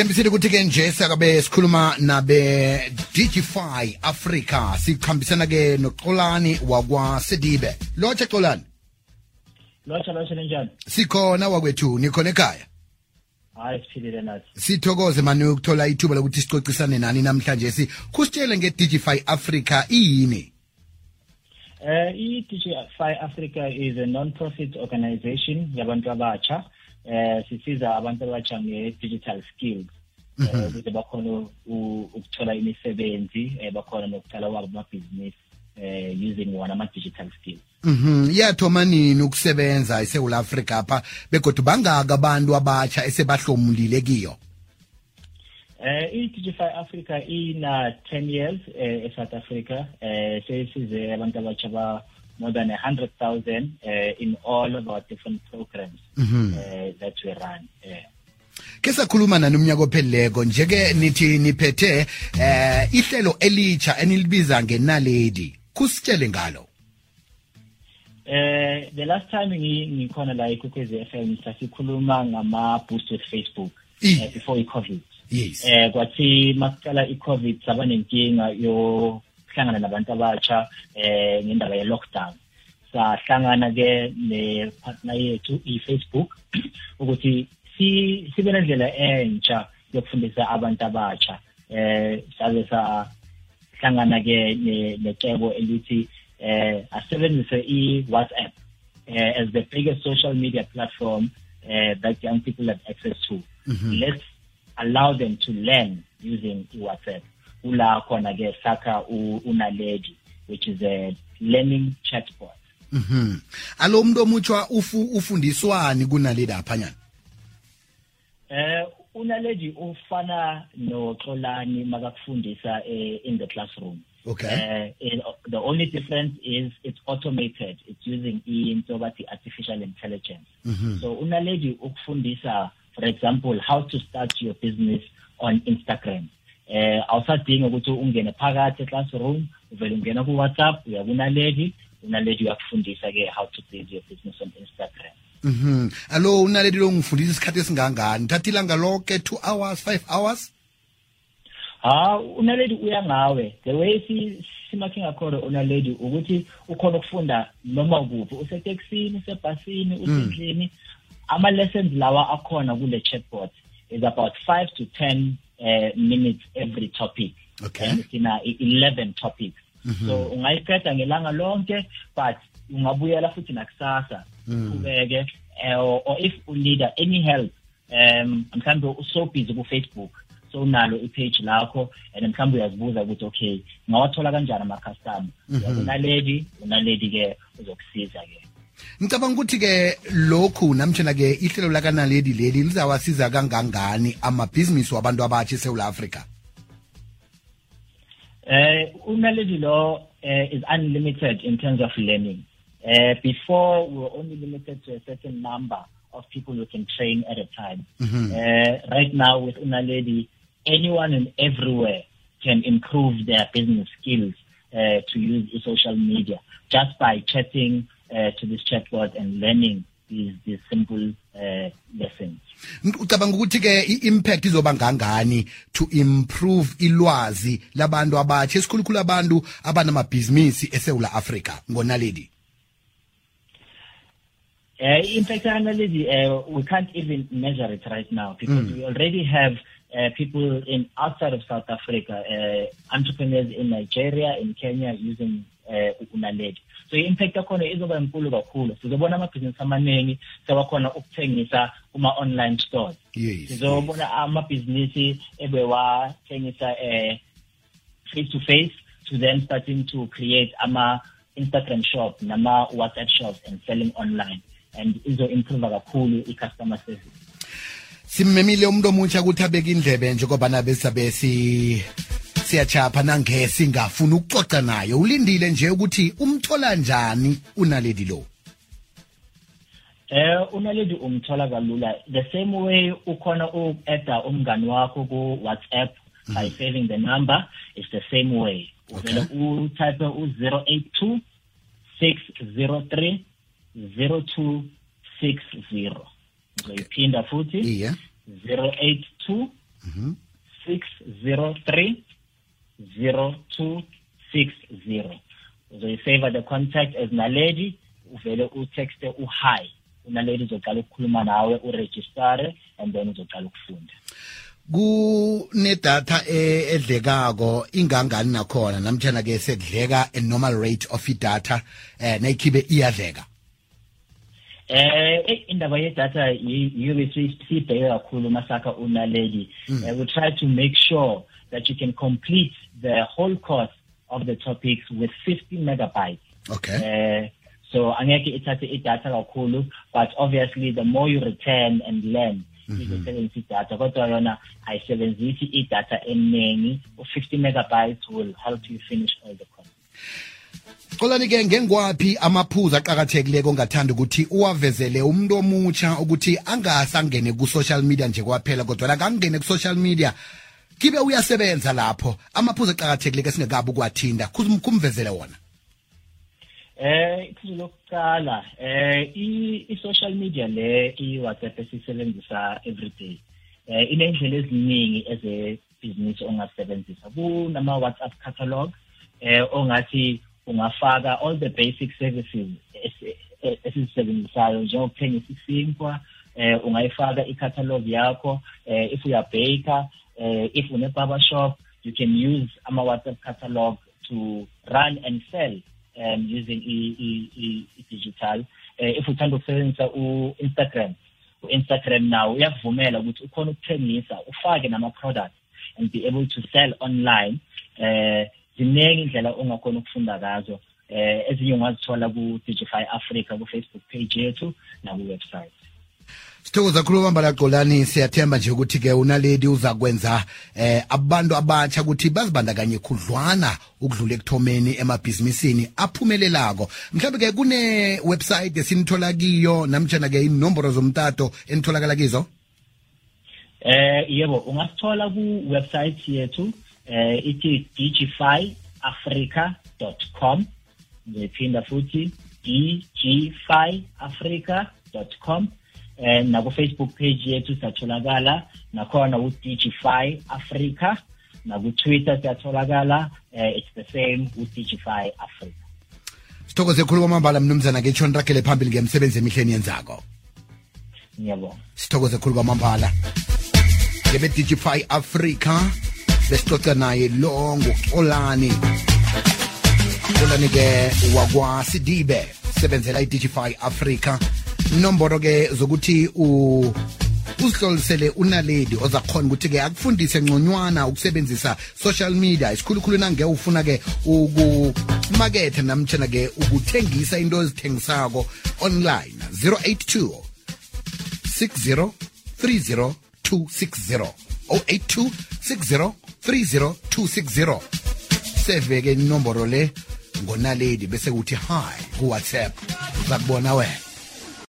Sithembisile ukuthi ke nje sakabe sikhuluma nabe Digify Africa sikhambisana ke noXolani wakwa Sedibe. Lotsha Xolani. Lotsha njani? Sikhona wakwethu nikhona ekhaya. Hayi siphilile nathi. Sithokoze manje ukuthola ithuba lokuthi sicocisane nani namhlanje kusitshele ngeDigify Africa yini? iDigify Africa is a non-profit organization yabantu abatsha. Sisiza abantu abatsha nge-digital skills ukuze bakhona ukuthola imisebenzi bakhona nokuqala wabo amabhizinisi using one ama-digital skills. Yathoma nini ukusebenza eSouth Africa apha begodwa bangaka abantu abatsha esebahlomulile kiyo? iDigify Africa ina 10 years eSouth Africa. Sesize abantu abatsha ba more than 100,000 in all of our different programs that we run. Ke sakhuluma nani umnyaka opheleleko njeke nithi niphethe ihlelo elitsha enilibiza ngenaledi. Kusitshele ngalo. The last time ngikhona la eKwekwezi FM sasikhuluma ngama boost with Facebook before iCovid. Yes. Kwathi masiqala iCovid saba nenkinga yo hlangana nabantu abatsha ngendaba ye lockdown. Sahlangana ke ne partner yethu iFacebook ukuthi sibe nendlela entsha yokufundisa abantu abatsha. Sabe sahlangana ke necebo elithi asebenzise iWhatsApp as the biggest social media platform that young people have access to. Let's allow them to learn using WhatsApp. Ula khona ke saka unaledi, which is a learning chatbot. Alo umuntu omutsha ufundiswani kunaledi aphanyana? Unaledi ufana noXolani makakufundisa in the classroom. Okay. The only difference is it's automated. It's using into artificial intelligence. So unaledi ukufundisa, for example, how to start your business on Instagram. Awusadinga ukuthi ungene phakathi classroom, uvele ungena ku WhatsApp, unaledi uyakufundisa ke how to build your business on Instagram. Alo unaledi lo ngifundisa isikhathi esingangani? Thatha ilanga lonke 2 hours, 5 hours? Unaledi uya ngawe. The way simakhe ngakhona unaledi ukuthi ukhona ukufunda noma kuphi, useteksini, usebhasini, usendlini. Ama lessons lawa akhona kule chatbot is about 5 to 10 minutes every topic. Okay. And it's in 11 topics. So ungayiqeda ngelanga lonke, but ungabuyela futhi nakusasa ubeke or if you need any help mhlambe uso busy ku Facebook, so unalo ipage lakho and mhlambe uyazibuza ukuthi okay ngawathola kanjani ama customer. Unaledi ke uzokusiza ke. Ngicabanga ukuthi ke lokhu namtjena ke ihlelo lakanaledi leli lizawasiza kangangani amabhizinisi wabantu abatsha eSouth Africa? Unaledi law is unlimited in terms of learning. Before we were only limited to a certain number of people who can train at a time. Right now with Unaledi, anyone and everywhere can improve their business skills to use social media just by chatting to this chatbot and learning these simple lessons. Ucabanga ukuthi ke impact izoba ngangani to improve ilwazi labantu abatsha esikhulukhulu abantu abanamabhizinisi eSouth Africa ngonaledi? Impact Unaledi, we can't even measure it right now because we already have people outside of South Africa, entrepreneurs in Nigeria, in Kenya using Unaledi. So impact yakhona izoba enkulu kakhulu. Sizobona amabhizinisi amaningi sewakhona ukuthengisa kuma online stores. Sizobona amabhizinisi ebewathengisa face to face to then starting to create ama Instagram shop nama WhatsApp shops and selling online, and izo improve kakhulu i-customer service. Simmemile umuntu omutsha ukuthi abeke indlebe nje ngoba nabe sabesi siyachapha nangesi ngafuna ukuxoxa naye. Ulindile nje ukuthi umthola njani unaledi lo? Unaledi umthola kalula. The same way ukhona uku-add umngani wakho ku WhatsApp by saving the number, it's the same way. Uvele utype 082 603 0260. 080 082 603 0260. Uzoyisave the contact as Naledi, uvele utext hi. Unaledi uzoqala ukukhuluma nawe, uregister, and then uzoqala ukufunda. Kunedatha edlekako ingangani nakhona namtjana ke sekudleka a normal rate of data nayikhibe iyadleka. Indaba yedatha yiyo sibheke kakhulu masakha uNaledi. We try to make sure that you can complete the whole course of the topics with 50 megabytes. Okay. So angeke ithathe idatha kakhulu, but obviously the more you return and learn, izosebenzisa idatha. Kodwa yona ayisebenzisi idatha eningi. 50 megabytes will help you finish all the course. Xolani ke ngengwaphi amaphuzu aqhakathekile ongathanda ukuthi uwavezele umuntu omutsha ukuthi angasangene ku social media nje kwaphela kodwa la kangene ku social media kibe uyasebenza lapho amaphuzu aqhakathekile ke singekabi ukwathinda kumvezele wona. Iphuzu lokuqala i-social media le i-WhatsApp esisebenzisa everyday inendlela eziningi eze-business ongasebenzisa. Kunama WhatsApp catalog ongathi ungafaka all the basic services esizisebenzisayo njengokuthengisa isinkwa, ungayifaka i-catalog yakho. If you are baker, if une barber shop, you can use ama WhatsApp catalog to run and sell using digital. If uthanda ukusebenzisa Instagram now uyakuvumela ukuthi ukhona ukuthengisa, ufake nama products and be able to sell online. Ziningi indlela ongakhona ukufunda ngazo. Ezinye ungazithola ku Digify Africa ku Facebook page yethu na ku website. Sithokoza kakhulu Mambala Xolani, siyathemba nje ukuthi ke uNaledi uzakwenza abantu abatsha ukuthi bazibandakanye khudlwana ukudlula ekuthomeni emabhizinisini aphumelelako. Mhlawumbe ke kune website esinithola kiyo namtjana ke inombolo zomtato enitholakala kizo? Yebo, ungasithola ku website yethu ithi digifyafrica.com. Ngiphinda futhi digifyafrica.com. Na ku Facebook page yethu satholakala nakhona u Digify Africa, na ku Twitter satholakala it's the same u Digify Africa. Sithokoze khulu kwamambala mnumzana ke tshona rakele phambili ngemsebenzi emihleni yenzako. Ngiyabonga. Sithokoze khulu kwamambala. Ngebe Digify Africa besixoxa naye lo ngoXolani. Xolani ke wakwa Sidibe sebenzela iDigify Africa. Nomboro ke zokuthi uzihlolisele uNaledi ozakhona ukuthi ke akufundise ngconywana ukusebenzisa social media isikhulukhulu nange ufuna ke ukumakethe namtjana ke ukuthengisa into ezithengisako online. 082 60 30 260 082 60 30 260. Seve ke inomboro le ngoNaledi bese uthi hi ku WhatsApp uzakubona wena.